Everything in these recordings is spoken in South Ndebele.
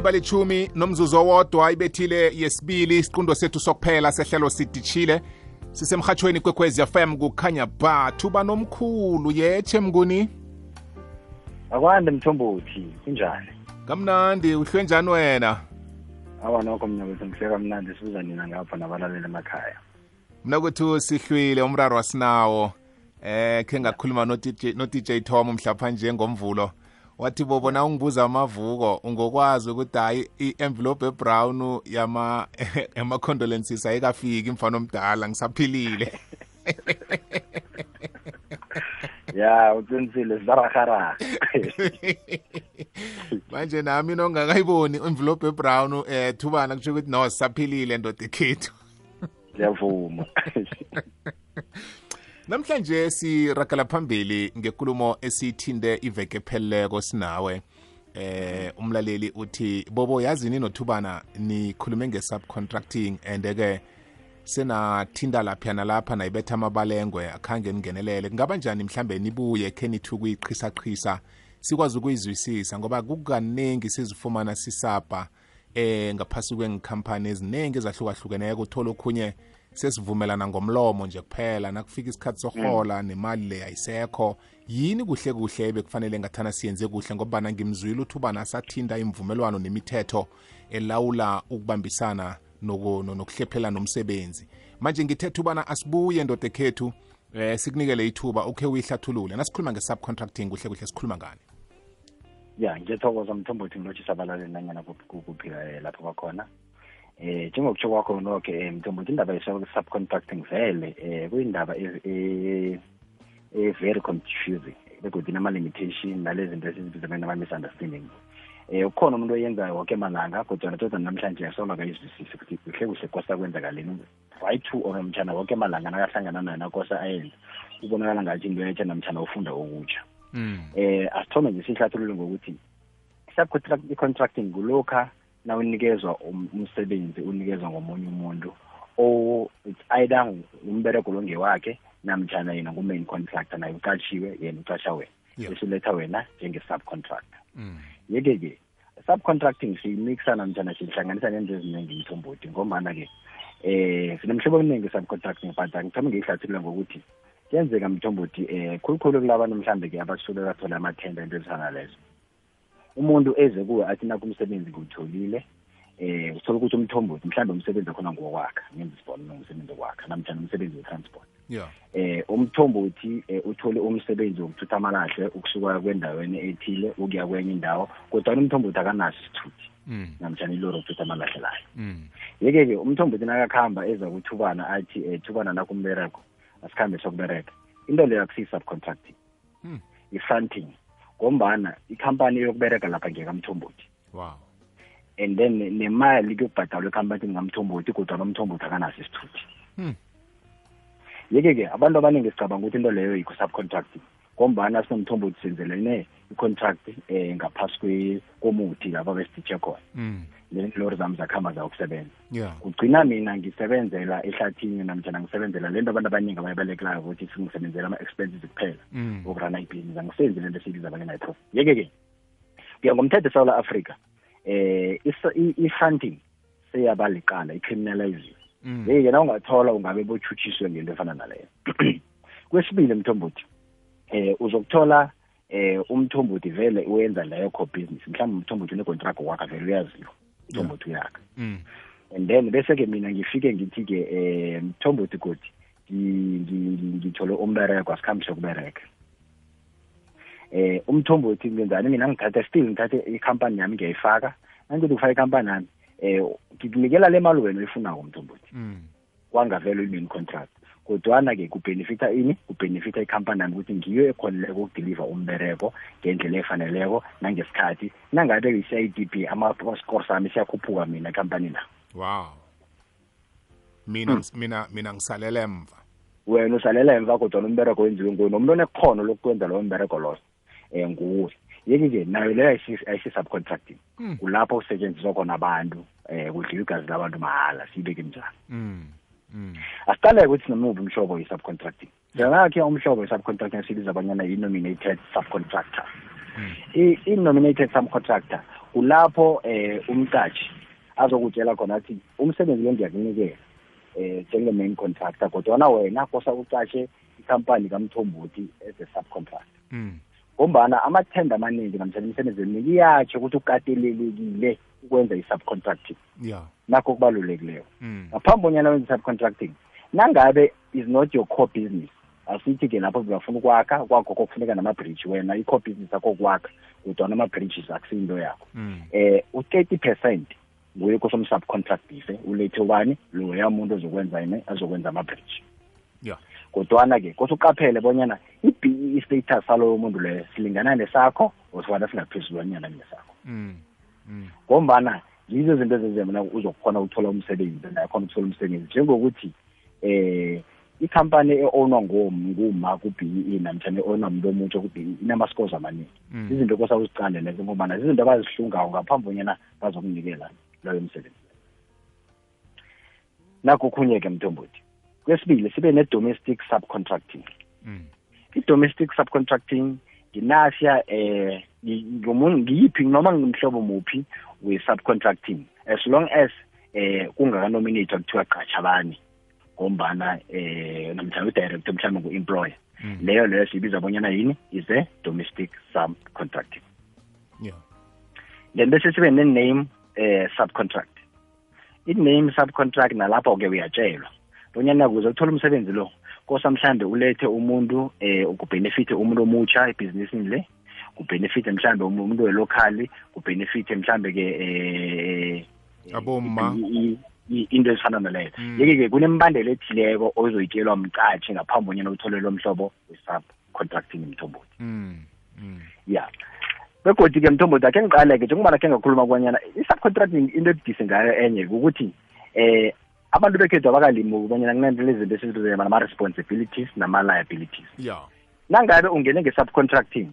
balichumi nomzuzu owodwa ibethile yesibili isiqundo sethu sokuphela sehlelo sidishile sisemhathweni kwekwezi FM kukhanya ba thuba nomkhulu yeche mnguni akwande Mthombothi kunjani kamnandi uhlwe njani wena awa nokho mina bese ngihleka mnandi sibuza nina ngapha nabalaleli emakhaya mina kuthi sihlwile umraro wasinawo ke ngakhuluma no DJ Tom mhlapha nje ngomvulo wathi bobona ungibuza amavuko ungokwazi ukuthi hayi i-envelope ebrown yama condolences ayikafiki mfana omdala ngisaphilile ya uqinisile zarahara manje nami nongakayiboni envelope ebrown thubana kusho ukuthi no sisaphilile ndoda ekhethu ngiyavuma namhlanje sirakala phambili ngekulumo esithinde iveke pheleleko sinawe umlaleli uthi bobo yazini nothubana nikhulume nge-subcontracting and-ke senathinda lapha nalapha nayibetha amabalengwe akhange ningenelele kungaba njani mhlambe nibuye khe nithi ukuyiqhisa sikwazi ukuyizwisisa ngoba kukaningi sizifumana sisapha ngaphasi kwengikhampani eziningi ezahlukahlukeneko uthola okhunye sesivumelana ngomlomo nje kuphela nakufika isikhathi sohola nemali le ayisekho yini kuhle bekufanele ngathana siyenze kuhle ngoba ngimzwile uthubana asathinda imvumelwano nemithetho elawula ukubambisana nokuhlephelana nomsebenzi manje ngithethe ubana asibuye ndoda ekhethu sikunikele ithuba ukhe uyihlathulule nasikhuluma nge-subcontracting kuhle sikhuluma ngani ya ngiyathokoza Mthombothi ngilotshisa abalaleli nanyana kuphila lapho bakhona njengokutsho kwakho nokho Mthombothi indaba ye-subcontracting vele kuyindaba very confusing begodwa inama-limitation nalezi zinto esizibiza nama-misunderstanding ukhona umuntu oyenzayo wonke malanga kodwa todwa namhlanje asola kayizwisisi ukuthi kuhle kosa kwenzakaleni right to omtshana wonke malanga nakahlangana naye nakosa ayenza ubonakala ngathi into yetsha namtshana ufunda okutsha asithome nje sihlathulule ngokuthi subcontracting kulokha na unikezwa umsebenzi unikezwa ngomunye umuntu it's either umbereko longewakhe namtshana yena ngu-main contractor naye uqashiwe yena uqasha wena esiletha wena njenge-subcontractor yeke-ke subcontracting siyimixa namtshana sihlanganisa nento eziningi Mthombothi ngombana-ke sinemhlobo eminingi subcontracting but ngithome ngiyihlathulula ngokuthi kuyenzeka Mthombothi khulukhulu kulabantu mhlambe-ke abasuke bathola amathenda into ezifana lezo umuntu eze kuwe athi nakumsebenzi kuwutholile uthola ukuthi uMthombothi mhlambe umsebenzi wakhona ngokwakha ngenza isibonelo umsebenzi wakwakha namtshana umsebenzi we-transport uMthombothi uthole umsebenzi wokuthutha amalahle ukusuka kwendaweni ethile ukuya kwenye indawo kodwa uMthombothi akanaso isithuthi namtshana ilori yokuthutha amalahle layo yeke-ke uMthombothi nakakhamba eza kuthubana athi thubana nakumbereko asikhambe sokubereka into leyo akusiyi-subcontracting i-fronting ngombana ikhampani yokubereka lapha ngekaMthombothi and then nemali kuyokubhadalwa ekhampani ngamthombothi kodwa nomthombothi akanaso isithuthi yeke-ke abantu abaningi sicabanga ukuthi into leyo yiko-subcontracting ngombana sinomthombothi senzelene i-contract ngaphasi komuthi lapha besititshe khona lori zami zakhamba zawokusebenza kugcina mina ngisebenzela ehlathini namtshana ngisebenzela lento abantu abaningi abayibalekelayo ukuthi singisebenzela ama-expenses kuphela okurana ibhizinisi angisenzi lento esiyibiza abanye-profit yeke-ke kuya ngomthetho eSouth Africa i-funding seyabaliqala i-criminaliziwe yeke na ungathola ungabe botshutshiswe ngento efana naleyo kwesibili Mthombothi uzokuthola uMthombothi vele uyenza leyo co-business mhlawumbe uMthombothi une-contract wakhe vele uyaziwa Mthombothi uyakha and then bese-ke mina ngifike ngithi-ke Mthombothi godi ngithole umbereko asikhambe sokubereka uMthombothi ngenzani mina ngithathe ikhampani yami ngiyayifaka nangithi ukufaka ikhampani yami ngikunikela le mali wena oyifunako Mthombothi kwangavele uyi-main contract kodwana-ke kubhenefitha ini kubhenefitha ikhampani yami ukuthi ngiyo ekhoneleko ukudeliver umbereko ngendlela efaneleko nangesikhathi nangabe yi-CIDP ama-score sami siyakhuphuka mina ekhampanini la mina ngisalela emva wena usalela emva kodwa nombereko wenziwe nguwe nomuntu onekhono lokwenza lowo mbereko loyo nguwe yeke-ke nayo leyo ayisi-subcontracting kulapho kusetshenziswa khona abantu kudliwa igazi labantu mahala siyibeke njani asiqaleke ukuthi sinomuphi umhlobo we-subcontracting njengakhe umhlobo we-subcontracting sibiza abanyana yi-nominated subcontractor i-nominated subcontractor kulapho umqashi azokutshela khona athi umsebenzi lo ngiyakunikela njenge-main contractor kodwa wena kosa uqashe ikhampani kaMthombothi as a subcontractor. Ngombana amathenda amaningi namhlanje imisebenzi eminingi iyatsho ukuthi ukatelelekile ukwenza i-subcontracting. Nakho kubalulekileyo. Ngaphambi bonyana wenza i-subcontracting, nangabe is not your core business, asithi ke lapho bafuna ukwakha kwakho kokufuneka nama-bridge wena i-core business yakho kwakha kodwa nama-bridges akusinto yakho. U-30% nguye kosomsubcontractive ulethe ubani loya muntu azokwenza ama-bridge. Kodwana ke kosuqaphele bonyana i-BE status saloyo muntu leyo silingana nesakho osifana singaphezulwanyana nesakho. Ngombana yizo izinto ezenzema uzokhona ukuthola umsebenzi nakhona ukuthola umsebenzi njengokuthi ikhampani e-ownwa nguma ku-BE namtshana e-ownwa umuntu omutsha ku-BE inama-scores amaningi. Izinto kosa uzicande lezo ngobana izinto abazihlungayo ngaphambi bonyana bazokunikela loyo msebenzi. Nakho khunye-ke Mthombothi. Kwesibili sibe ne-domestic subcontracting. I-domestic subcontracting nginasya ngiyiphi noma ngimhlobo muphi we-subcontracting as long as kungaka-nominator kuthiwa qatsha abanye ngombana namhlanje u-director mhlawumbe ngu-employer leyo siyibiza bonyana yini is a domestic subcontracting. Then bese sibe ne-name subcontract. I-name subcontract nalapho-ke uyatshelwa bonyana kuze uthola umsebenzi lo kosa mhlambe ulethe umuntu ukubenefit umuntu omutsha ebhizinisini le, kubenefit mhlambe umuntu welocally, kubenefit mhlambe ke aboma into ezifana naleyo. Yeke-ke kunembandela ethileko ozoyitshelwa umqatshi ngaphambi bonyana uthole lo mhlobo we-subcontracting Mthombothi. Begodwa-ke Mthombothi akhe ngiqale-ke njengobana khe ngakhuluma kwanyana i-subcontracting into ebudise ngayo enye ukuthi abantu bekhethu abakalimi ukubanyana kunento izinto esizibiza nama-responsibilities nama-liabilities. Nangabe ungene nge-subcontracting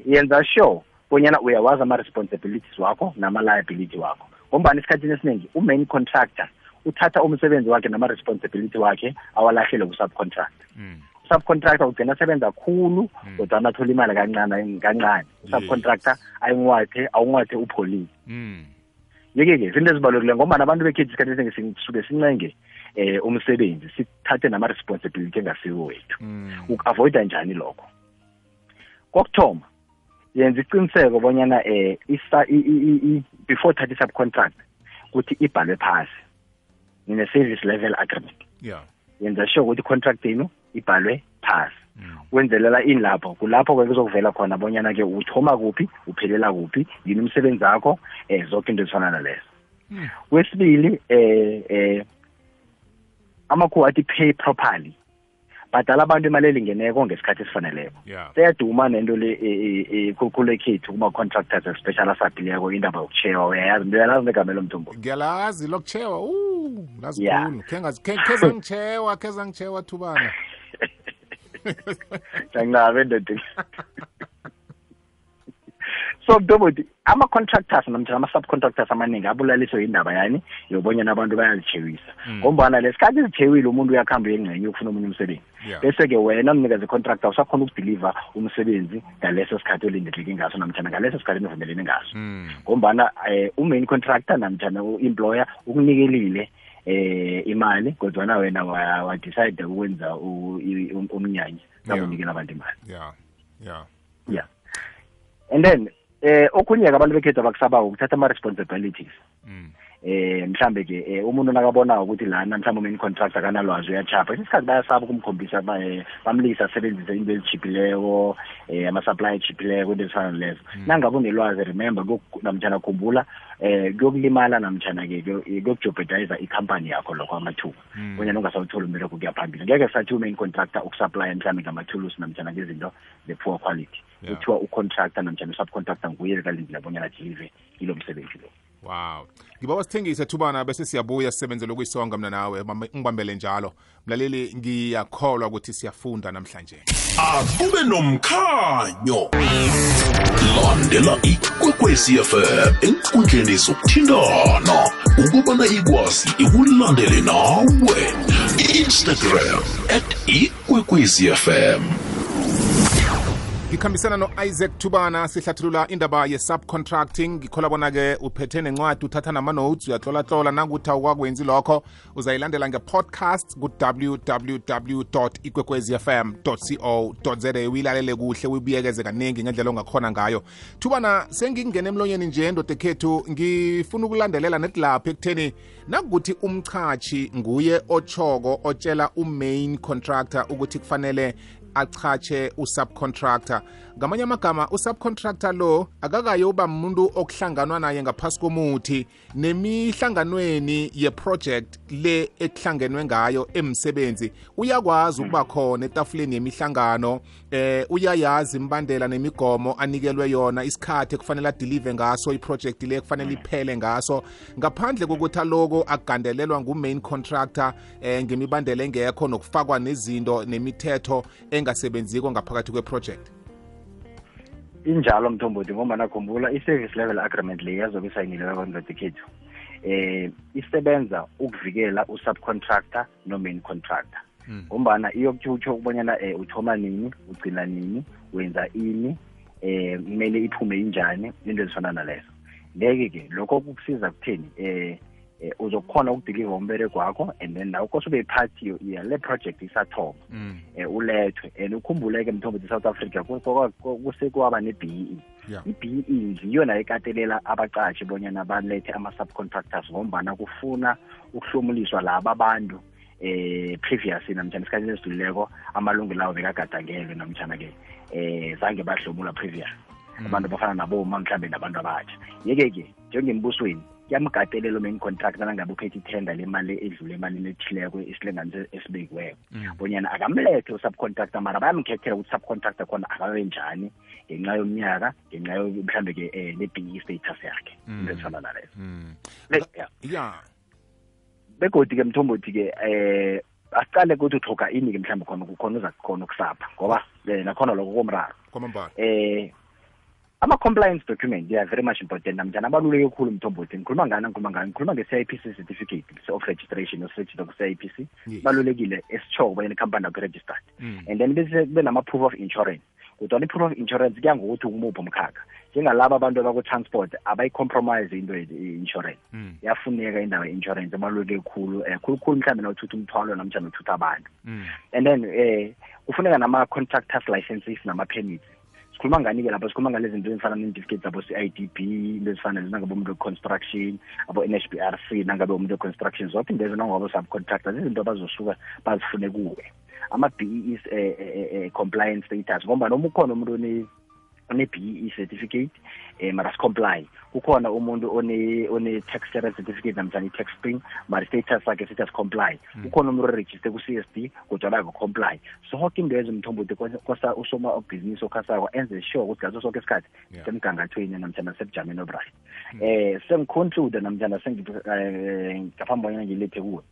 yenza sure bonyana uyawazi ama-responsibilities wakho nama-liability wakho ngombani esikhathini esiningi u-main contractor uthatha umsebenzi wakhe nama-responsibility wakhe awalahlele ku-subcontractor. Subcontractor ugcina asebenza kakhulu kodwa athola imali kancane. Subcontractor awungathe upholile. Yeke-ke izinto ezibalulekile ngoba abantu bekhethu isikhathi esingi sisuke sincenge umsebenzi sithathe nama-responsibility engasiwo wethu. Uku-avoida njani lokho? Kokuthoma yenza iqiniseko bonyana before thatha i-subcontract ukuthi ibhalwe phasi nine-service level agreement. Yenza sure ukuthi i-contract yenu ibhalwe phasi. Wenzelela ini lapho kulapho-ke kuzokuvela khona bonyana-ke uthoma kuphi uphelela kuphi yini umsebenzi wakho zonke into ezifana nalezo. Kwesibili amakhuwa athi pay properly, badala abantu imali elingeneko ngesikhathi esifaneleko. Seyaduma nento le kule khethu kuma-contractors especially asaphileko indaba yokuchewa uyayazi uyalazi negamelo Mthombothi. Ngiyalazi lokuchewa lazikhulu kheza ngichewa thubana Jangabe ndoda. So Mthombothi ama-contractors namtjana ama-subcontractors amaningi abulaliswe indaba yani yobonyana abantu bayalichewisa ngombana lesikhathi izithewile umuntu uyakhamba uyengcenye ukufuna omunye umsebenzi bese-ke wena mnikazi contractor usakhona ukudeliver umsebenzi ngaleso sikhathi olindeleke ngaso namtjana ngaleso sikhathi nivumelene ngaso ngombana u-main contractor namtjana u-employer ukunikelile imali kodwa wena wadecide ukwenza umnyanya sakunikela abantu imali. And then okhunye-ke abantu bekhethu abakusabako ukuthatha ama-responsibilities. Mhlambe ke umuntu nakabona ukuthi lana mhlawumbe umain contractor kanalwazi uyachapha isikhathi bayasaba ukumkhombisa bamlisa asebenzise into ezichipileko ama-supply echipileko into ezifana lezo. Nangabe unelwazi remember namtjana khumbula kuyokulimala namtjana-ke kuyokujeopardize ikhampani yakho lokho amathuba bonyana ungasawutholi umbereko kuya phambili. Ngeke sathi umain contractor ukusupply mhlawumbe ngamathulusi namtjana ngezinto ze-poor quality kuthiwa ucontractor namtjana usubcontractor nguye kalindile bonyana deliver ilo msebenzi lo. Wow. Ngibawa sithengise thubana bese siyabuya sisebenzele ukuyisonga mina nawe ngibambele njalo. Mlaleli ngiyakholwa ukuthi siyafunda namhlanje. Akube nomkhanyo. Landela ikwekwezi FM enkundleni zokuthindana ukubana ikwazi ikulandele nawe. Instagram @ikwekwezi FM. ngikhambisana no-Isaac Thubana sihlathulula indaba ye-subcontracting ngikhola bona-ke uphethe nencwadi uthatha nama-notes uyatlola nanguthi awukwakwenzi lokho uzayilandela nge-podcast ku-www ikwekwezfm co za uyilalele kuhle uyibuyekeze kaningi ngendlela ongakhona ngayo. Thubana, sengingena emlonyeni nje ndoda ekhethu ngifuna ukulandelela netilapho ekutheni nakuthi umchachi nguye otshoko otshela umain contractor ukuthi kufanele achache usubcontractor. Ngamanye amagama usubcontractor lo akakayoba umuntu okuhlanganwa naye ngaphasi komuthi nemihlanganweni yeproject le ekuhlangenwe ngayo emsebenzi uyakwazi ukuba khona etafuleni yemihlangano uyayazi imbandela nemigomo anikelwe yona isikhathi ekufanele adelive ngaso iproject le ekufanele iphele ngaso ngaphandle kokuthi aloko agandelelwa ngumain contractor ngemibandela engekho nokufakwa nezinto nemithetho engasebenziko ngaphakathi kweproject. Injalo Mthombothi ngoba nakhumbula i-service level agreement le yazobe isayinilwe kwangadekhethu isebenza ukuvikela usubcontractor no-main contractor ngombana iyokutsho ukubonyana uthoma nini ugcina nini wenza ini kumele iphume injani into ezifana nalezo. Ngeke-ke lokho kukusiza kutheni uzokhona ukudiliva umbereko wakho and then nawe kose ube party yale project isathoma ulethwe and ukhumbuleke Mthombothi South Africa kusekwaba ne-BEE. I-BEE ngiyona ekatelela abaqashi bonyana balethe ama-subcontractors ngombana kufuna ukuhlomulishwa laba abantu previous namtjana isikhathi esidluleko amalungu lawo bekagadangelwe namtjana-ke zange bahlomula previous abantu bafana naboma mhlambe nabantu abatsha. Yeke-ke njengembusweni kuyamgatelela main contractor nangabe uphethe ithenda lemali edlule emalini ethileko isilinganiso esibekiweko bonyana akamlethe usubcontractor mara bayamkhethela ukuthi subcontractor khona akabe njani ngenxa yomnyaka ngenxa mhlambe-ke ne-BEE status yakhe into ezifana nalezo. Begodi-ke Mthombothi-ke asiqale ukuthi uthoga ini-ke mhlambe khona uza khona ukusapha ngoba nakhona lokho komraro ama-compliance document they are very much important namjani abaluleke khulu Mthombothi. Ngikhuluma nge-CIPC certificate of registration oseregistered ku-CIPC balulekile esitshoko bonyana ikhampani yakho registered and then bese kube nama-proof of insurance. Kodwa i-proof of insurance kuya ngokuthi umuphi umkhakha njengalaba abantu abakutransport abayi-compromise into ye-insurance yafuneka indaba ye-insurance abaluleke khulu khulukhulu mhlawumbe nawuthutha umthwalo namjani uthutha abantu and then kufuneka nama-contractors licenses nama-permits. Sikhuluma ngani-ke lapho sikhuluma ngalezi zinto ezifana ne-certificate zabo CIDB into ezifana nangabe umuntu we-construction abo-NHBRC nangabe umuntu we-construction zonke into ezinangabo subcontractors izinto abazosuka bazifune kuwe ama-BEE compliance status ngoba noma ukhona umuntu one-BEE certificate mara si-comply kukhona umuntu one-tax clearance certificate namtjani i-tax spring mara status sakhe sithi asi-comply kukhona umuntu oregister ku-CSD kodwa bako-comply zonke into ezo Mthombothi kosa usoma obhizinisi okhasako enze sure ukuthi ngaso sonke isikhathi semgangathweni namtjana sebujameni obright. Sengiconclude namtjana ngaphambi bonyana ngilethe kuwe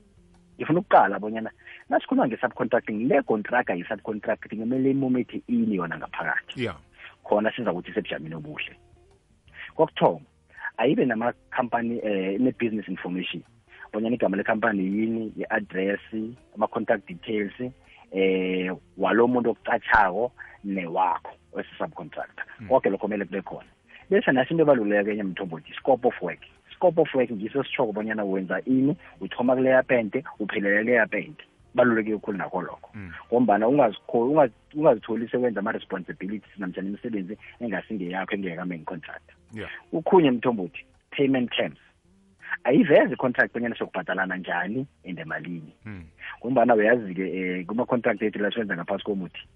ngifuna ukuqala bonyana nasikhuluma nge-subcontracting le contractor yi-subcontracting kumele imumethe ini yona ngaphakathi khona siza ukuthi sebujameni obuhle. Kokuthoma ayibe nama-company ne-business information bonyana igama le-company yini, i-address, ama-contact details walo muntu okucatshako newakho wesi-subcontractor konke lokho kumele kube khona. Bese nasi into ebaluleke enye Mthombothi scope of work. Scope of work ngiso sitshoko bonyana wenza ini, uthoma kuleya pente uphelela leya pente baluleke kakhulu nakho lokho ngombana ungazitholi sekwenza ama-responsibilities namtjana imisebenzi engasingeyakho engekamain contractor. Ukhunye Mthombothi payment terms ayiveze i-contract bonyana sokubhatalana njani and emalini ngombana uyazi-ke kuma-contract ethu la siwenza ngaphasi komuthi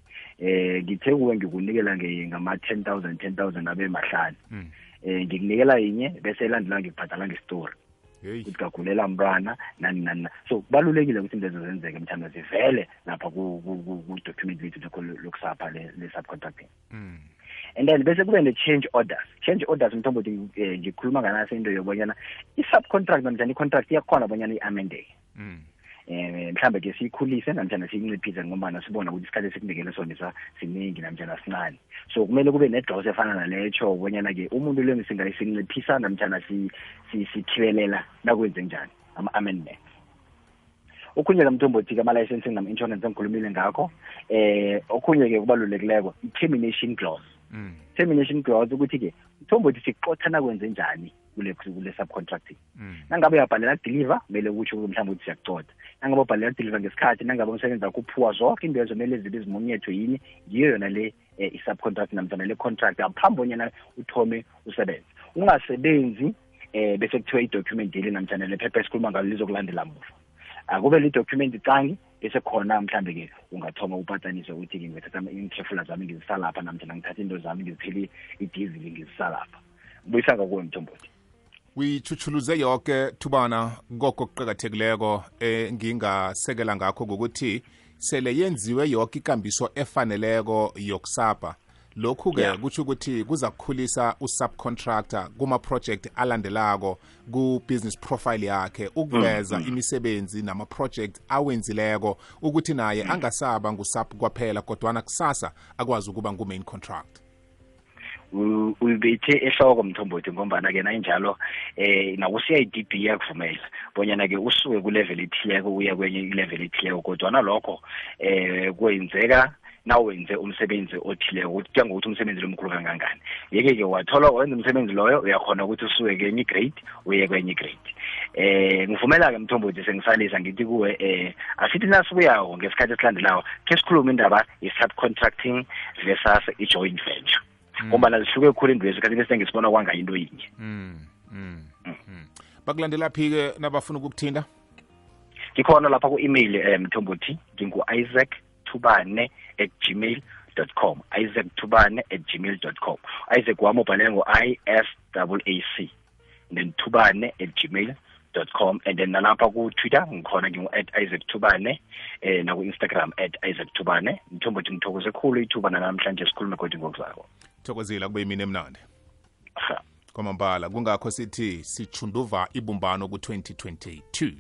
ngithe kuwe ngikunikela ngama-10,000 abe mahlanu ngikunikela yinye bese elandela ngikubhadala nge-story ukuthi kagulela mntwana nani so kubalulekile ukuthi into ezo zenzeke mthanda zivele lapha ku-document lethu lokusapha le-subcontracting and then bese kube ne-change orders Mthombothi ngikhuluma nganaso into yobonyana i-subcontract namjani i-contract iyakhona bonyana i-amendeke mhlambe-ke siyikhulise namjana siyinciphise ngombana sibona ukuthi isikhathi esikunekele sona siningi namjana sincane so kumele kube ne-dose efana naleyo bonyana-ke umuntu lo singayinciphisa namjana sithibelela nakwenze njani ama-amendments. okhunye kamthombothi ama-licensing nama-insurance engikhulumile ngakho okhunye-ke kubalulekileko i-termination clause. Termination clause ukuthi-ke mthombothi sikuxothana kwenze njani kule subcontracting. Nangabe uyabhalela deliver kumele kutsho mhlawumbe ukuthi siyakuxotha. Nangabe ubhalela deliver ngesikhathi, nangabe umsebenzi wakho uphuwa zonke into ezomele zibe zimunyethwe yini, yiyo yona le i-subcontract namhlanje le contract ngaphambi bonyana uthome usebenze. Ungasebenzi bese kuthiwa i-document ile namhlanje le phepha esikhuluma ngalo lizokulandela muva. Akube le document icangi bese khona mhlambe ke ungathoma upatanise ukuthi ke ngithatha intrefula zami ngizisa lapha namhlanje ngithatha into zami ngizitheli i-diesel ngizisa lapha. Buyisanga kuwe Mthombothi. Uyichuchuluze yonke Thubana ngoko kuqhakathekileko ngingasekela ngakho ukuthi sele yenziwe yonke ikambiso efaneleko yokusapa. Lokhu ke kuthi ukuthi kuza kukhulisa usubcontractor kuma project alandelako ku business profile yakhe ukuveza imisebenzi nama project awenzileko ukuthi naye angasaba ngusub kwaphela kodwa kusasa akwazi ukuba ngu main contract. Uyibethe ehloko Mthombothi ngombana ke nayinjalo naku CIDB yakuvumela bonyana ke usuke ku level ethileko uya kwenye level ethileko kodwa nalokho kwenzeka nawenze umsebenzi othileko ukuthi ngokuthi umsebenzi lomkhulu kangangani. Yeke ke wathola wenza umsebenzi loyo uyakhona ukuthi usuke kwenye grade uye kwenye grade. Ngivumela ke Mthombothi sengisalisa ngithi kuwe asithi nasibuyako ngesikhathi esilandelayo ke sikhuluma indaba ye-subcontracting versus i-joint venture. Ngoba zihluke khulu indwezi kanti bese ngisibona kwanga into yinye. Bakulandela phike nabafuna ukukuthinda? Ngikhona lapha ku-email Mthombothi ngingu-isaacthubane@gmail.com isaacthubane@gmail.com. Isaac wami ubhalele ngo-ISAAC then thubane@gmail.com and then nalapha ku-Twitter ngikhona ngingu@isaacthubane naku-Instagram @isaacthubane. Mthombothi ngithokoze khulu ithuba namhlanje sikhulume kodwa ngokuzako. Thokozela kube yimini emnandi. Kwamambala kungakho sithi sichunduva ibumbano ku-2022.